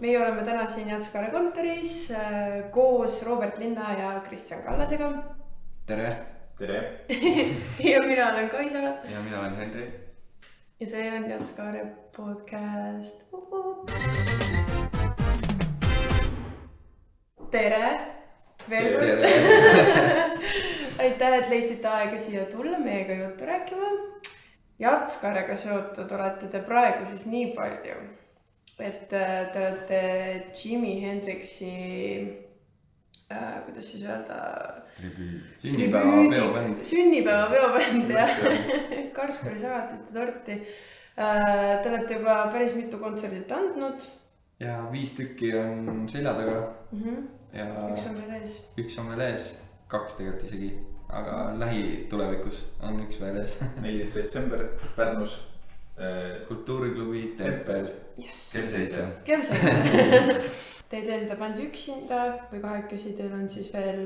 Meie oleme täna siin Jatskare kontoris koos Robert Linna ja Kristjan Kallasega. Tere! Tere! Ja mina olen Kaisa. Ja mina olen Henri. Ja see on Jatskare podcast. Tere! Veel kord! Aitäh, et leidsite aega siia tulla meiega juttu rääkima. Jatskarega seotud olete te praegu siis nii palju, et te olete Jimi Hendrixi, kuidas siis öelda? Sünnipäeva peobänd ja kartulisalatite torti. Te olete juba päris mitu kontserdit andnud. Ja 5 tükki on selja taga. Ja üks on veel ees. Üks on veel ees, 2 tegelikult isegi, aga lähitulevikus on üks veel ees. 14. detsember Pärnus. Kultuuriklubi Tempel. Kell 7. Kell 7. Te ei tee seda bändi üksinda või kahekesi, teil on siis veel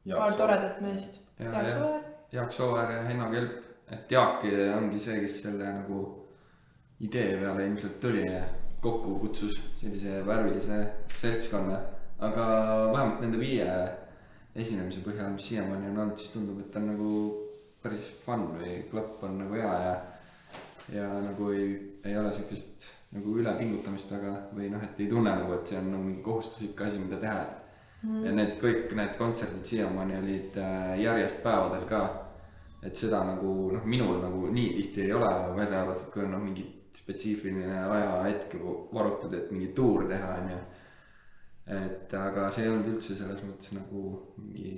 paar toredat meest. Jaak Sooäär ja Henno Kelp. Et Jaak ongi see, kes selle nagu idee peale ilmselt tuli ja kokku kutsus sellise värvilise seltskonna. Aga vähemalt nende 5 esinemise põhjal, mis siiamaani on olnud, siis tundub, et on nagu päris fun või klapp on nagu hea ja nagu ei ole sellist nagu ülepingutamist väga või noh, et ei tunne nagu, et see on nagu mingi kohustuslik asi, mida teha. Ja kõik need kontserdid siiamaani olid järjest päevadel ka, et seda nagu minul nagu nii tihti ei ole välja arvatud, kui on mingi spetsiifiline ajahetk varutud, et mingi tuur teha on ju. Et aga see ei olnud üldse selles mõttes nagu mingi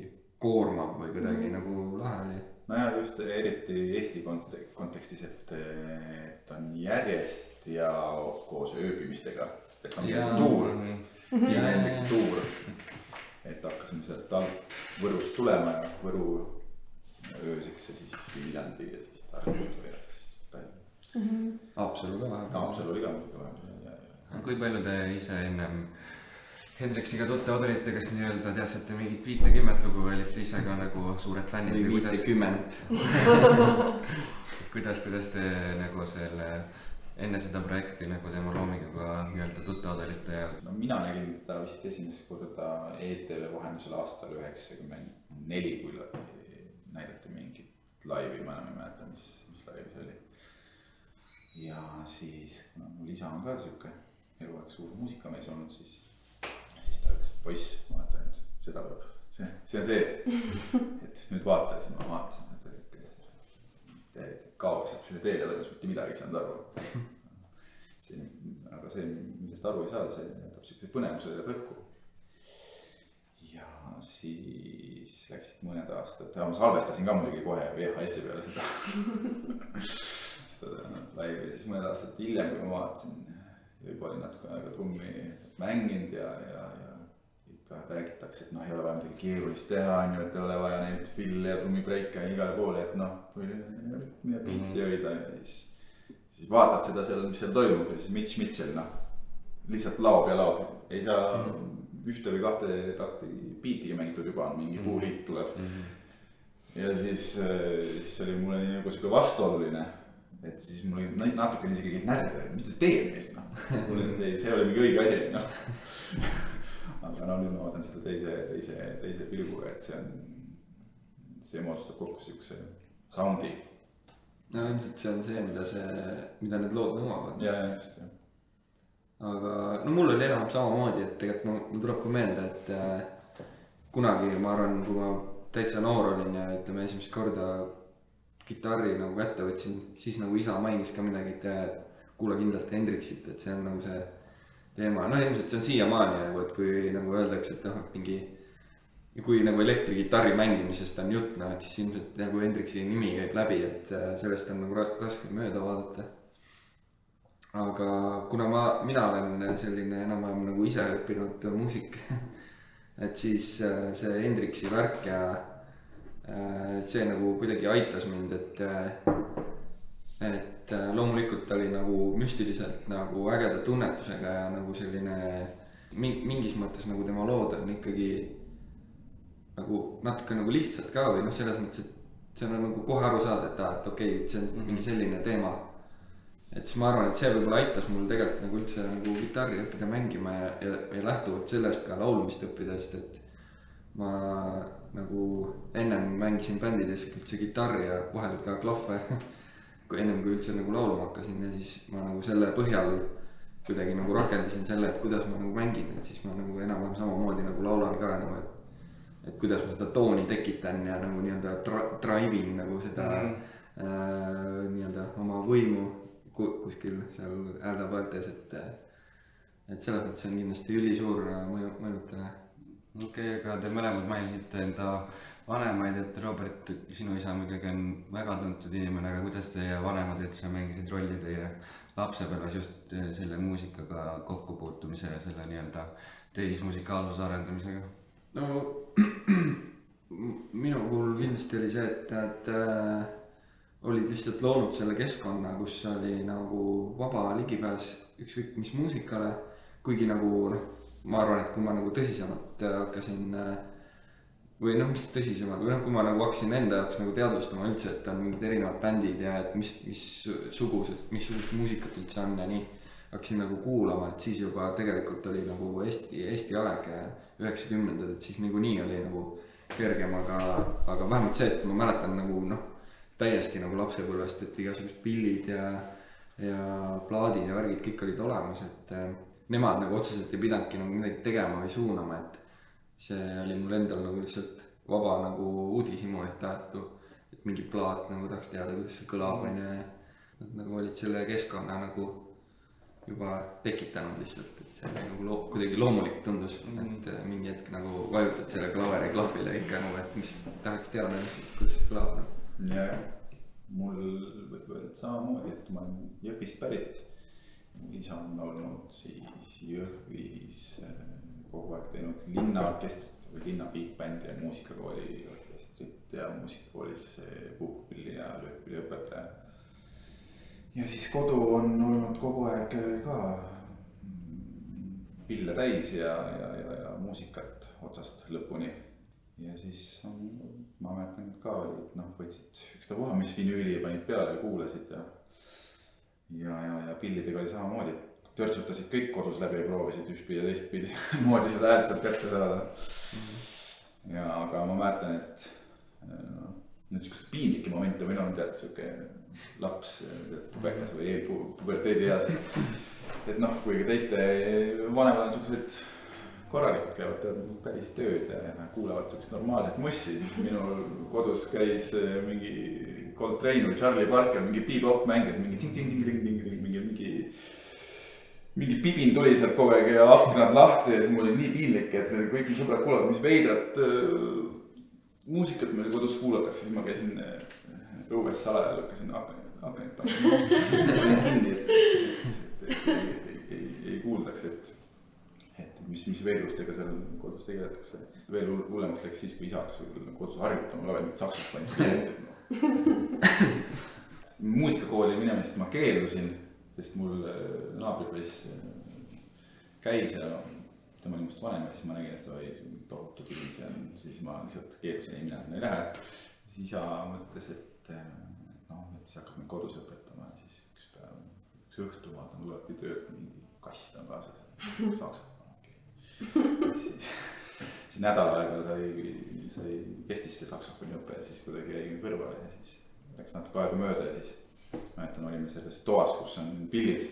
koormav või kuidagi nagu lahe oli. No ja just eriti Eesti kontekstis, et on järjest ja koos ööbimistega, et on tuur, näiteks tuur, et hakkasime sealt Võrust tulema ja Võru ööseks ja siis Viljandi ja siis Tartu ja siis Tallinna. Haapsalu ka vahepeal. Haapsalu oli ka. Kui palju te ise ennem Hendrixiga tuttavad olite, kas nii-öelda teadsite mingit 50 lugu või olite ise ka nagu suured fännid või 50? Kuidas te nagu selle enne seda projekti nagu tema loominguga nii-öelda tuttavad olite? No mina nägin ta vist esimest korda ETV vahendusel aastal 94, kui näidati mingit laivi, ma enam ei mäleta, mis laivi see oli. Ja siis, kuna mul isa on ka siuke eluaeg suur muusikamees olnud, siis ta ütles, et poiss, vaata nüüd, seda peab, see on see, et nüüd vaata, siis ma vaatasin, et kaos, et selle teele toimus mitte midagi ei saanud aru. Aga see, millest aru ei saa, see jätab siukse põnevuse ja põhku. Ja siis läksid mõned aastad, ma salvestasin ka muidugi kohe VHS-i peale seda laivi ja siis mõned aastad hiljem, kui ma vaatasin, juba oli natuke aega trummi mänginud ja ikka räägitakse, et ei ole vaja midagi keerulist teha, et ei ole vaja neid fille ja trummibreike igale poole, et mida biiti hoida ja siis vaatad seda seal, mis seal toimub ja siis Mitch Mitchell lihtsalt laob ja laob, ei saa 1 või 2 takti biitiga mängitud juba, mingi puuliit tuleb. Ja siis oli mulle nii nagu siuke vastuoluline. Et siis mul oli natuke isegi käis närv, mis see teeb mees, see oli mingi õige asi, Aga nüüd ma vaatan seda teise pilguga, et see moodustab kokku siukse soundi. No ilmselt see on see, mida need lood nõuavad. Ja just, jah. Aga mul oli enam samamoodi, et tegelikult mul tuleb ka meelde, et kunagi ma arvan, kui ma täitsa noor olin ja ütleme esimest korda kitarri nagu kätte võtsin, siis nagu isa mainis ka midagi, et kuule kindlalt Hendrixit, et see on nagu see teema. Ilmselt see on siiamaani nagu, et kui nagu öeldakse, et mingi kui nagu elektrikitarri mängimisest on jutt, et siis ilmselt nagu Hendrixi nimi käib läbi, et sellest on nagu raske mööda vaadata. Aga kuna mina olen selline enam-vähem nagu ise õppinud muusik, et siis see Hendrixi värk ja see nagu kuidagi aitas mind, et loomulikult oli nagu müstiliselt nagu ägeda tunnetusega ja nagu selline mingis mõttes nagu tema lood on ikkagi nagu natuke nagu lihtsalt ka või selles mõttes, et see on nagu kohe aru saada, et okei, see on mingi selline teema. et siis ma arvan, et see võib-olla aitas mul tegelikult nagu üldse nagu kitarri õppida mängima ja lähtuvalt sellest ka laulmist õppida, sest et ma nagu ennem mängisin bändides üldse kitarri ja vahel ka klahve kui ennem kui üldse nagu laulma hakkasin ja siis ma nagu selle põhjal kuidagi nagu rakendasin selle, et kuidas ma nagu mängin, et siis ma nagu enam-vähem samamoodi nagu laulan ka nagu, et kuidas ma seda tooni tekitan ja nagu nii-öelda drive'in nagu seda nii-öelda oma võimu kuskil seal hääldapaeltes, et selles mõttes on kindlasti ülisuur mõjutaja. Okei, aga te mõlemad mainisite enda vanemaid, et Robert, sinu isa muidugi on väga tuntud inimene, aga kuidas teie vanemad üldse mängisid rolli teie lapsepõlves just selle muusikaga kokkupuutumise ja selle nii-öelda tehismusikaalsuse arendamisega? No minu puhul kindlasti oli see, et nad olid lihtsalt loonud selle keskkonna, kus oli nagu vaba ligipääs ükskõik mis muusikale, kuigi nagu ma arvan, et kui ma nagu tõsisemalt hakkasin või mis tõsisemalt, või kui ma nagu hakkasin enda jaoks nagu teadvustama üldse, et on mingid erinevad bändid ja et missugust muusikat üldse on ja nii, hakkasin nagu kuulama, et siis juba tegelikult oli nagu Eesti aeg 90-ndad, et siis niikuinii oli nagu kergem, aga vähemalt see, et ma mäletan nagu täiesti nagu lapsepõlvest, et igasugused pillid ja plaadid ja värgid kõik olid olemas, et nemad nagu otseselt ei pidanudki nagu midagi tegema või suunama, et see oli mul endal nagu lihtsalt vaba nagu uudishimu, et mingi plaat nagu tahaks teada, kuidas see kõlab on ja nad nagu olid selle keskkonna nagu juba tekitanud lihtsalt, et see oli nagu kuidagi loomulik tundus, et mingi hetk nagu vajutad selle klaveri klahvile ikka nagu, et mis tahaks teada, kuidas see kõlab. Ja mul võib öelda samamoodi, et ma olen Jõhvist pärit. Mul isa on olnud siis Jõhvis kogu aeg teinud linnaorkestrit või linna big bändi ja muusikakooli orkestrit ja muusikakoolis puhkpilli ja löökpilli õpetaja. Ja siis kodu on olnud kogu aeg ka pille täis ja muusikat otsast lõpuni. Ja siis ma mäletan ka, et võtsid ükstapuha, mis vinüüli panid peale ja kuulasid ja pillidega oli samamoodi, törtsutasid kõik kodus läbi ja proovisid ühtpidi ja teistpidi moodi seda häält sealt kätte saada. Ja aga ma mäletan, et niisugused piinlikke momente või tead siuke laps, pubekas või eelpuberteedi eas. Et kuigi teiste vanemad on siuksed korralikult käivad päris tööd ja kuulavad siukest normaalset mussi. Minul kodus käis mingi Coltrane või Charlie Parker, mingi bebop mängis, mingi pibin tuli sealt kogu aeg ja aknad lahti ja siis mul oli nii piinlik, et kõiki sõbrad kuulavad, mis veidrat muusikat meil kodus kuulatakse, siis ma käisin õues salaja, lükkasin aknad kinni, et ei kuuldaks, et mis veidrustega seal kodus tegeletakse. Veel hullemaks läks siis, kui isa hakkas kodus harjutama, laval mingit saksofonist. Muusikakooli minemist ma keeldusin, sest mul naabripoiss käis ja tema oli must vanem ja siis ma nägin, et see oli tohutu pilis ja siis ma lihtsalt keeldusin, ei mina ei lähe. Siis isa mõtles, et siis hakkab mind kodus õpetama ja siis üks õhtu vaatan, tulebki töölt mingi kast on kaasas, saksofon. Siis nädal aega sai kestis see saksofoni õpe ja siis kuidagi jäi kõrvale ja siis läks natuke aega mööda ja siis mäletan, olime selles toas, kus on pillid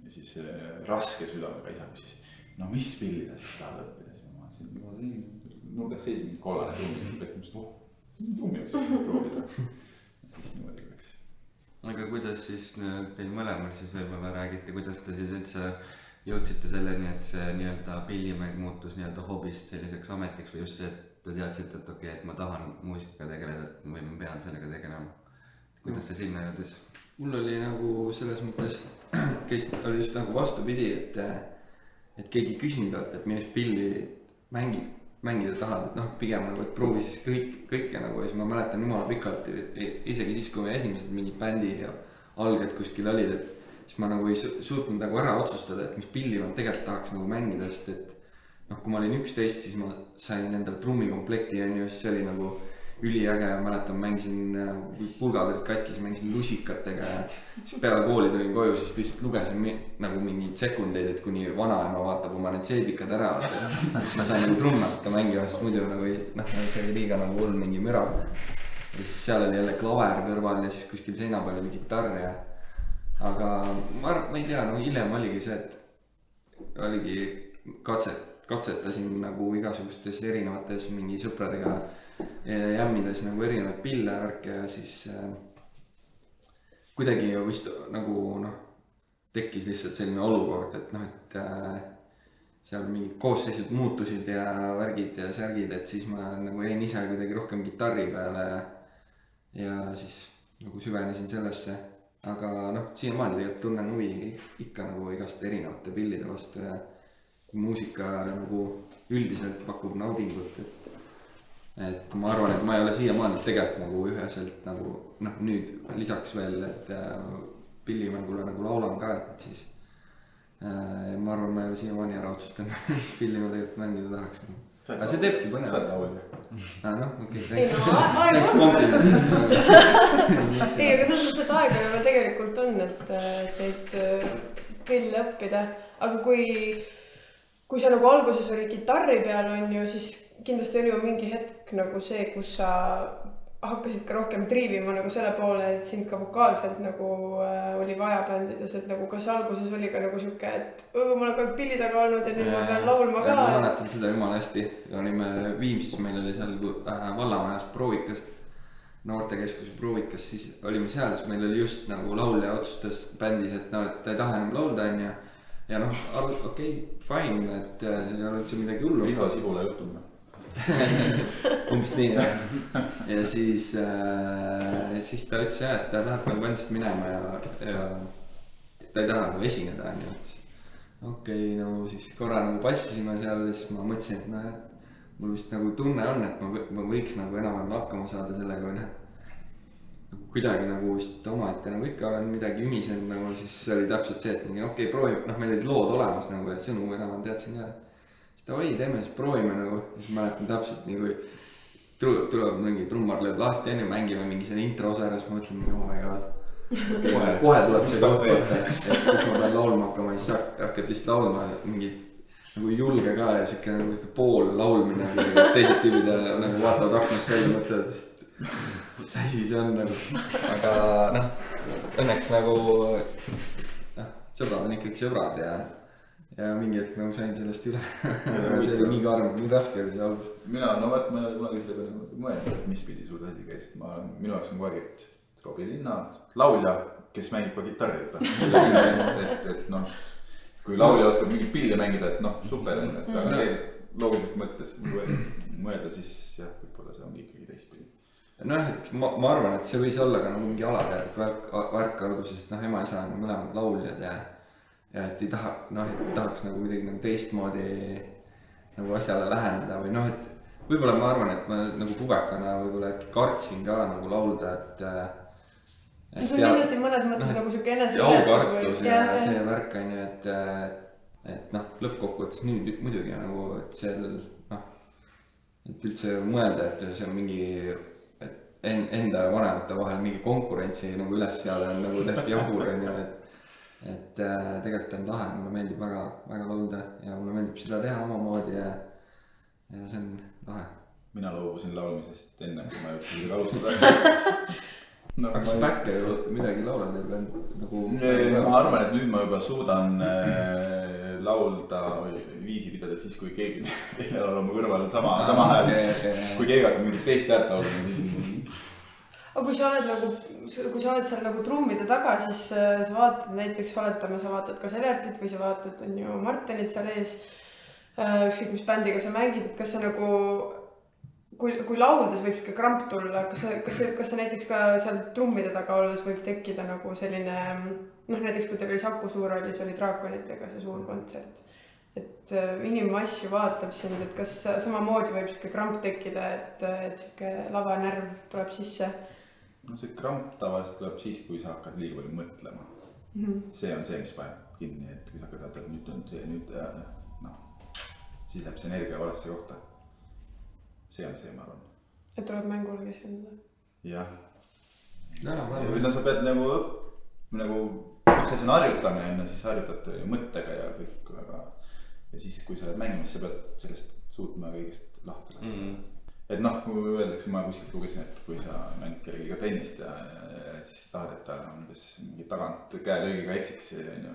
ja siis raske südamega isa küsis, mis pilli sa siis tahad õppida, siis ma vaatasin, nurgas seis mingi kollane trummi võiks proovida ja siis niimoodi läks. Aga kuidas siis teil mõlemal siis võib-olla räägite, kuidas te siis üldse jõudsite selleni, et see nii-öelda pillimäng muutus nii-öelda hobist selliseks ametiks või just see, et te teadsite, et okei, et ma tahan muusikaga tegeleda või ma pean sellega tegelema. Kuidas see sinna jõudis? Mul oli nagu selles mõttes, oli just nagu vastupidi, et keegi küsinud, et millest pilli mängida tahad, et pigem nagu, et proovi siis kõike nagu ja siis ma mäletan jumala pikalt, isegi siis, kui me esimesed mingid bändi ja alged kuskil olid, et siis ma nagu ei suutnud nagu ära otsustada, et mis pilli ma tegelikult tahaks nagu mängida, sest et kui ma olin 11, siis ma sain endale trummikomplekti ja siis see oli nagu üliäge, mäletan, mängisin, pulgad olid katkis, mängisin lusikatega ja siis peale kooli tulin koju, siis lihtsalt lugesin nagu mingeid sekundeid, et kuni vanaema vaatab oma need seebikad ära. Siis ma sain nagu trummi hakka mängima, sest muidu nagu see oli liiga nagu hull mingi müra. Ja siis seal oli jälle klaver kõrval ja siis kuskil seina peal oli kitarr ja aga ma ei tea, no hiljem oligi see, et oligi katsetasin nagu igasugustes erinevates mingi sõpradega jämmides nagu erinevaid pille värke ja siis kuidagi vist nagu tekkis lihtsalt selline olukord, et et seal mingid koosseisud muutusid ja värgid ja särgid, et siis ma nagu jäin ise kuidagi rohkem kitarri peale ja siis nagu süvenesin sellesse, aga siiamaani tegelikult tunnen huvi ikka nagu igast erinevate pillide vastu ja muusika nagu üldiselt pakub naudingut, et ma arvan, et ma ei ole siiamaani tegelikult nagu üheselt nagu nüüd lisaks veel, et pillimängule nagu laulan ka, et siis ma arvan, ma ei ole siiamaani ära otsustanud, pilli ma tegelikult mängida tahaks. Aga see teebki põnev. Saad laulja. Okei, thanks kompliment. Ei, aga selles mõttes, et aega juba tegelikult on, et neid pille õppida, aga kui sa nagu alguses oli kitarri peal on ju, siis kindlasti oli ju mingi hetk nagu see, kus sa hakkasid ka rohkem triivima nagu selle poole, et sind ka vokaalselt nagu oli vaja bändides, et nagu kas alguses oli ka nagu siuke, et ma olen kogu aeg pilli taga olnud ja nüüd ma pean laulma ka. Ma mäletan seda jumala hästi, olime Viimsis, meil oli seal vallamajas proovikas, noortekeskuse proovikas, siis olime seal, siis meil oli just nagu laulja otsustas bändis, et ta ei taha enam laulda ja okei, fine, et see ei ole üldse midagi hullu. Iga sibula juhtub. Umbes nii ja siis ta ütles jah, et ta läheb nagu bändist minema ja ta ei taha nagu esineda, nii et okei, no siis korra nagu passisime seal ja siis ma mõtlesin, et mul vist nagu tunne on, et ma võiks nagu enam-vähem hakkama saada sellega või kuidagi nagu vist omaette nagu ikka olen midagi ümisenud nagu, siis oli täpselt see, et okei, proovime, meil olid lood olemas nagu ja sõnu enam teadsin ka. Siis ta teeme siis proovime nagu, siis mäletan täpselt nii kui tuleb mingi trummar lööb lahti enne, mängime mingi selle intro osa ära, siis ma mõtlen, oh my god. Kohe tuleb see koht võtta, et kus ma pean laulma hakkama, siis hakkad lihtsalt laulma mingid nagu julge ka ja siuke nagu pool laulmine, teised tüübid nagu vaatavad aknast välja ja mõtlevad, mis asi see on nagu, aga õnneks nagu sõbrad on ikkagi sõbrad ja mingi hetk nagu sain sellest üle. See oli nii karm, nii raske oli see algus. Ma ei ole kunagi selle peale mõelnud, et mis pidi suur asi käis, minu jaoks on kogu aeg, et Robbie Linna, laulja, kes mängib ka kitarri, et kui laulja oskab mingit pilli mängida, et super on, et aga loogiliselt mõttes mõelda, siis jah, võib-olla see on ikkagi teistpidi. Ma arvan, et see võis olla ka nagu mingi alateadlik värk alguses, et ema-isa on mõlemad lauljad ja et ei tahaks nagu midagi nagu teistmoodi nagu asjale läheneda või et võib-olla ma arvan, et ma nagu pubekana võib-olla äkki kartsin ka nagu laulda, et see on kindlasti mõnes mõttes nagu siuke eneseületus ja see värk on ju, et lõppkokkuvõttes nüüd muidugi nagu, et seal et üldse mõelda, et see on mingi enda ja vanemate vahel mingi konkurentsi nagu üles seada on nagu täiesti jabur on ju, et tegelikult on lahe, mulle meeldib väga laulda ja mulle meeldib seda teha omamoodi ja see on lahe. Mina loobusin laulmisest enne, kui ma jõudsin seda alustada. Aga kas päkke ju midagi laulad nagu? Ma arvan, et nüüd ma juba suudan laulda või viisi pidada siis, kui keegi teine on oma kõrval sama hääl. Kui keegi hakkab mingit teist häält laulda, siis aga kui sa oled seal nagu trummide taga, siis sa vaatad näiteks, oletame, sa vaatad kas Evertit või sa vaatad, on ju Martinit seal ees, ükskõik mis bändiga sa mängid, et kas sa nagu, kui lauldes võib siuke kramp tulla, kas sa näiteks ka seal trummide taga olles võib tekkida nagu selline, näiteks kui teil oli Saku Suurhallis oli Draakonitega see suur kontsert, et inimmass ju vaatab sind, et kas samamoodi võib siuke kramp tekkida, et siuke lavanärv tuleb sisse? See kramp tavaliselt tuleb siis, kui sa hakkad liiga palju mõtlema. See on see, mis paneb kinni, et kui sa hakkad, et nüüd on see, siis läheb see energia valesse kohta. See on see, ma arvan. et tuleb mängule keskenduda. jah. või no sa pead nagu üks asi on harjutamine, siis harjutad mõttega ja kõik, aga ja siis, kui sa oled mängimas, sa pead sellest suutma kõigest lahti lasta. Et noh, kui öeldakse, ma kuskilt lugesin, et kui sa mängid kellegiga tennist ja siis tahad, et ta mingi tagant käelöögiga eksiks,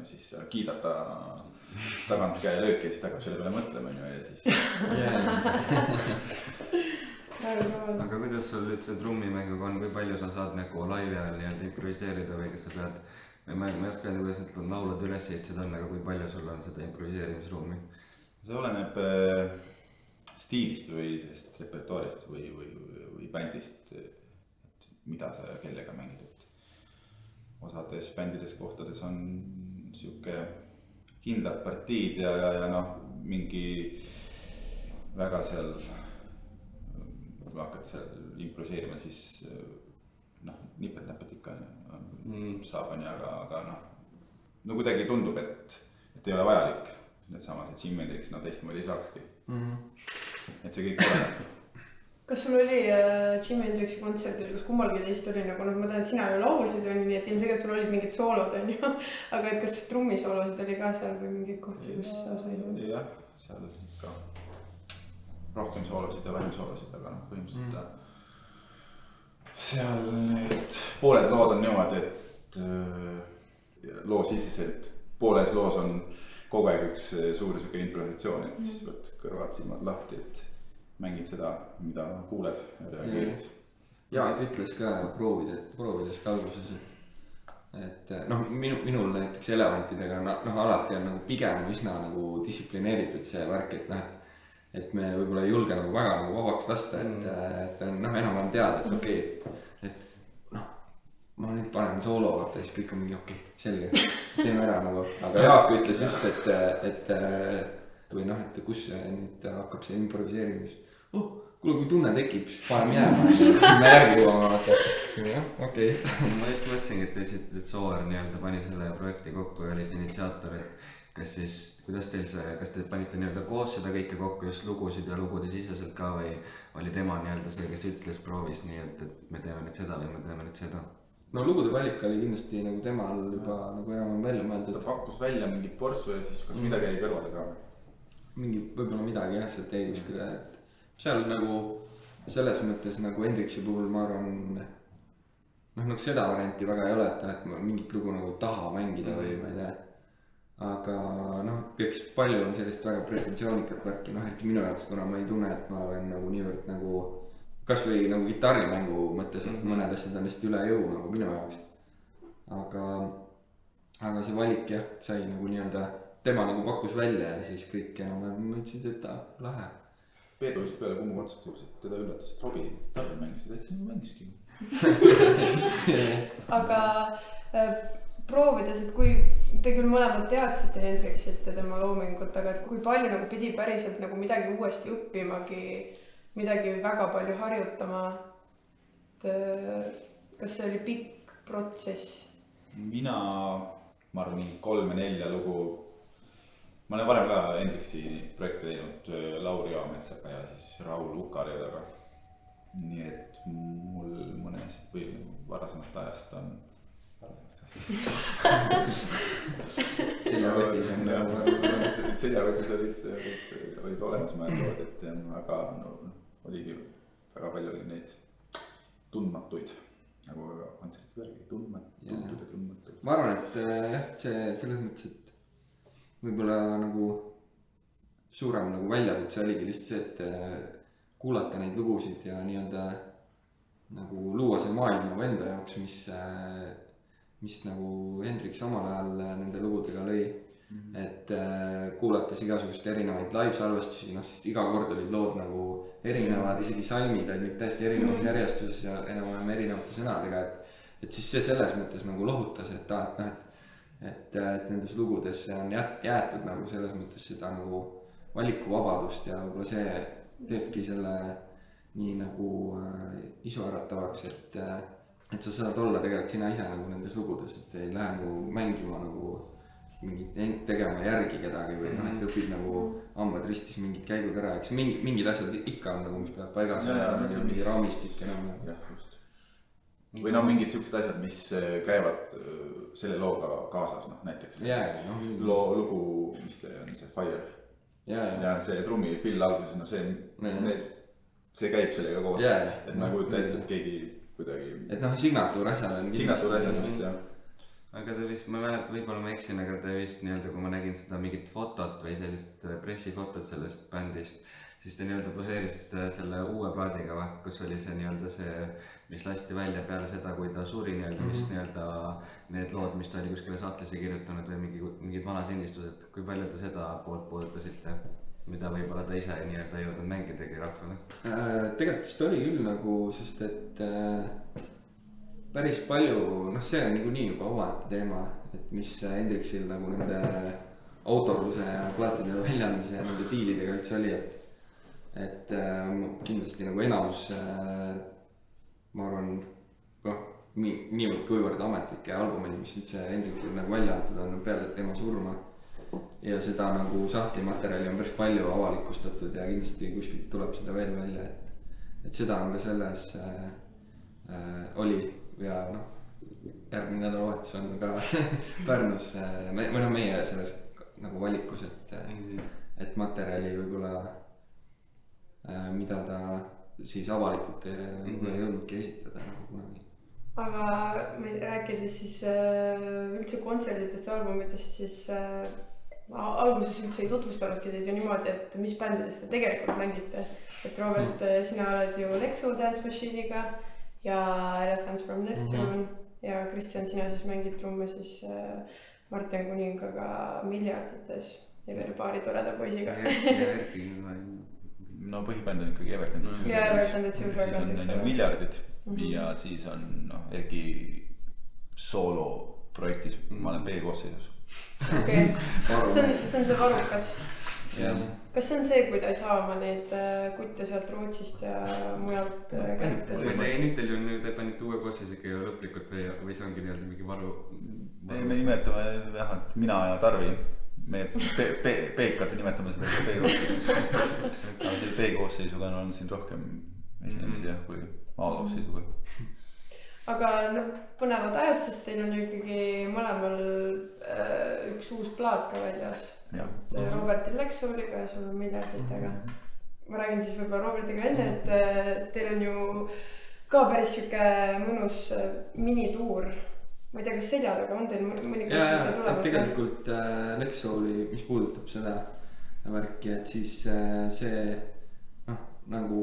siis sa kiidad ta tagant käelööki ja siis ta hakkab selle peale mõtlema ja siis aga kuidas sul üldse trummimänguga on, kui palju sa saad nagu laivi ajal nii-öelda improviseerida või kas sa pead ma ei oska öelda, kuidas need laulud üles ehitused on, aga kui palju sul on seda improviseerimisruumi? See oleneb stiilist või sellest repertuaarist või bändist, et mida sa kellega mängid, et osades bändides kohtades on siuke kindlad partiid ja noh, mingi väga seal, kui hakkad seal improviseerima, siis noh, nipet-näpet ikka saab on ja, aga noh, no kuidagi tundub, et ei ole vajalik. Need samad, et Jim Hendrix, no teistmoodi ei saakski. Et see kõik oleneb. Kas sul oli Jim Hendrixi kontserdil, kus kummalgi teist oli nagu, noh, ma tean, et sina ju laulsid, nii et ilmselt sul olid mingid soolod, on ju, aga et kas trummisoolosid oli ka seal või mingid kohti, kus sa said? Jah, seal ikka rohkem soolosid ja vähem soolosid, aga noh, põhimõtteliselt seal need pooled lood on niimoodi, et loo siseselt pooles loos on kogu aeg üks suur suke improvisatsioon, et siis pead kõrvad silmad lahti, et mängid seda, mida kuuled ja reageerid. Jaak ütles ka proovides ka alguses, et noh, minul näiteks elevantidega alati on nagu pigem üsna nagu distsiplineeritud see värk, et noh, et me võib-olla ei julge nagu väga nagu vabaks lasta, et noh, enam on teada, et okei, et noh, ma nüüd panen soolo, vaata, siis kõik on mingi okei, selge, teeme ära nagu, aga Jaak ütles just, et või noh, et kus nüüd hakkab see improviseerimis, kuule, kui tunne tekib, siis pane minema, me järgi jõuame, vaata, okei. Ma just mõtlesingi, et te ütlesite, et Sooäär nii-öelda pani selle projekti kokku ja oli see initsiaator, et kas siis, kuidas teil see, kas te panite nii-öelda koos seda kõike kokku, just lugusid ja lugude siseselt ka või oli tema nii-öelda see, kes ütles, proovis nii, et me teeme nüüd seda või me teeme nüüd seda? No lugude valik oli kindlasti nagu temal juba nagu enam välja mõeldud. Ta pakkus välja mingit portsu ja siis kas midagi jäi kõrvale ka? Mingi, võib-olla midagi jah, sealt jäi kuskile, et seal nagu selles mõttes nagu Hendrixi puhul ma arvan, noh nagu seda varianti väga ei ole, et ma mingit lugu nagu taha mängida või ma ei tea. Aga noh, eks palju on sellist väga pretensioonikat värki, noh eriti minu jaoks, kuna ma ei tunne, et ma olen nagu niivõrd nagu kas või nagu kitarrimängu mõttes, et mõned asjad on lihtsalt üle jõu nagu minu jaoks. Aga see valik jah, sai nagu nii-öelda, tema nagu pakkus välja ja siis kõik enam mõtlesid, et ta lahe. Peedu just peale Kummu kontserti juures, et teda üllatas, et Robbie gitarri mängis, et see mängiski. Aga proovides, et kui te küll mõlemad teadsite Hendrixit ja tema loomingut, aga et kui palju nagu pidi päriselt nagu midagi uuesti õppimagi, midagi väga palju harjutama, et kas see oli pikk protsess? Mina, ma arvan, 3-4 lugu, ma olen varem ka Hendrixi projekte teinud Lauri Joametsaga ja siis Raul Ukarjadaga. Nii et mul mõnes või varasemast ajast on seljavetis on seljavetis olid olemas mõeldood, et aga no, oligi väga palju oli neid tundmatuid nagu kontserti värgi, tundmatuid. Ma arvan, et jah, see selles mõttes, et võib-olla nagu suurem nagu väljakutse oligi lihtsalt see, et kuulata neid lugusid ja nii-öelda nagu luua see maailm nagu enda jaoks, mis nagu Hendrix omal ajal nende lugudega lõi. Et kuulates igasugust erinevaid live-salvestusi, noh siis iga kord olid lood nagu erinevad, isegi salmid olid täiesti erinevas järjestuses ja enam-vähem erinevate sõnadega, et siis see selles mõttes nagu lohutas, et nendes lugudes on jäetud nagu selles mõttes seda nagu valikuvabadust ja võib-olla see teebki selle nii nagu isuäratavaks, et sa saad olla tegelikult sina ise nagu nendes lugudes, et ei lähe nagu mängima nagu mingit tegema järgi kedagi või noh, et õpid nagu hambad ristis mingid käigud ära, eks mingid asjad ikka on nagu, mis peab paigas olema, mingi raamistik enam. jah, just. või no mingid siuksed asjad, mis käivad selle looga kaasas, noh näiteks lugu, mis see on, see Fire. ja see trummi fill alguses, no see käib sellega koos, et ma ei kujuta ette, et keegi kuidagi. et noh, signatuur asjal on. signatuur asjal just, jah. aga ta vist, ma mäletan, võib-olla ma eksin, aga ta vist nii-öelda, kui ma nägin seda mingit fotot või sellist pressifotot sellest bändist, siis te nii-öelda poseerisite selle uue plaadiga, kus oli see nii-öelda see, mis lasti välja peale seda, kui ta suri nii-öelda, mis nii-öelda need lood, mis ta oli kuskile sahtlisse kirjutanud või mingid vanad lindistused, kui palju te seda poolt puudutasite, mida võib-olla ta ise nii-öelda jõudnud mängidagi rahvale? Tegelikult vist oli küll nagu, sest et päris palju, noh, see on niikuinii juba omaette teema, et mis Hendrixil nagu nende autorluse ja plaatide väljaandmise ja nende diilidega üldse oli, et kindlasti nagu enamus, ma arvan, noh, niivõrd kuivõrd ametlikke albumeid, mis üldse Hendrixil nagu välja antud on peale tema surma ja seda nagu sahtlimaterjali on päris palju avalikustatud ja kindlasti kuskilt tuleb seda veel välja, et seda on ka selles oli ja noh, järgmine nädalavahetus on ka Pärnus või noh, meie selles nagu valikus, et materjali võib-olla, mida ta siis avalikult ei jõudnudki esitada nagu kunagi. aga rääkides siis üldse kontserditest ja albumitest, siis alguses üldse ei tutvustanudki teid ju niimoodi, et mis bändidest te tegelikult mängite. et Robert, sina oled ju Lexo Dance Machine'iga ja Elephants from Neptune ja Kristjan, sina siis mängid trumme siis Martin Kuningaga Miljardites ja veel paari toreda poisiga. no põhibänd on ikkagi Everton. ja Everton, et see siis on Miljardid ja siis on noh, Erki sooloprojektis, ma olen B-koosseisus. okei, see on see Varukas. kas see on see, kui ta ei saa oma neid kutte sealt Rootsist ja mujalt kätte? nüüd teil ju nüüd panite uue koosseisuga ju lõplikult või see ongi nii-öelda mingi varu? me nimetame jah, et mina ja Tarvi, me Peekat nimetame seda B-koosseisuks. aga selle B-koosseisuga on olnud siin rohkem esinemisi jah, kui A-koosseisuga. aga noh, põnevad ajad, sest teil on ju ikkagi mõlemal üks uus plaat ka väljas. Robertil Lexoliga ja sul on Miljarditega. ma räägin siis võib-olla Robertiga enne, et teil on ju ka päris siuke mõnus minituur. ma ei tea, kas selja taga on teil mõni kontsert tulemas? tegelikult Lexoli, mis puudutab seda värki, et siis see noh, nagu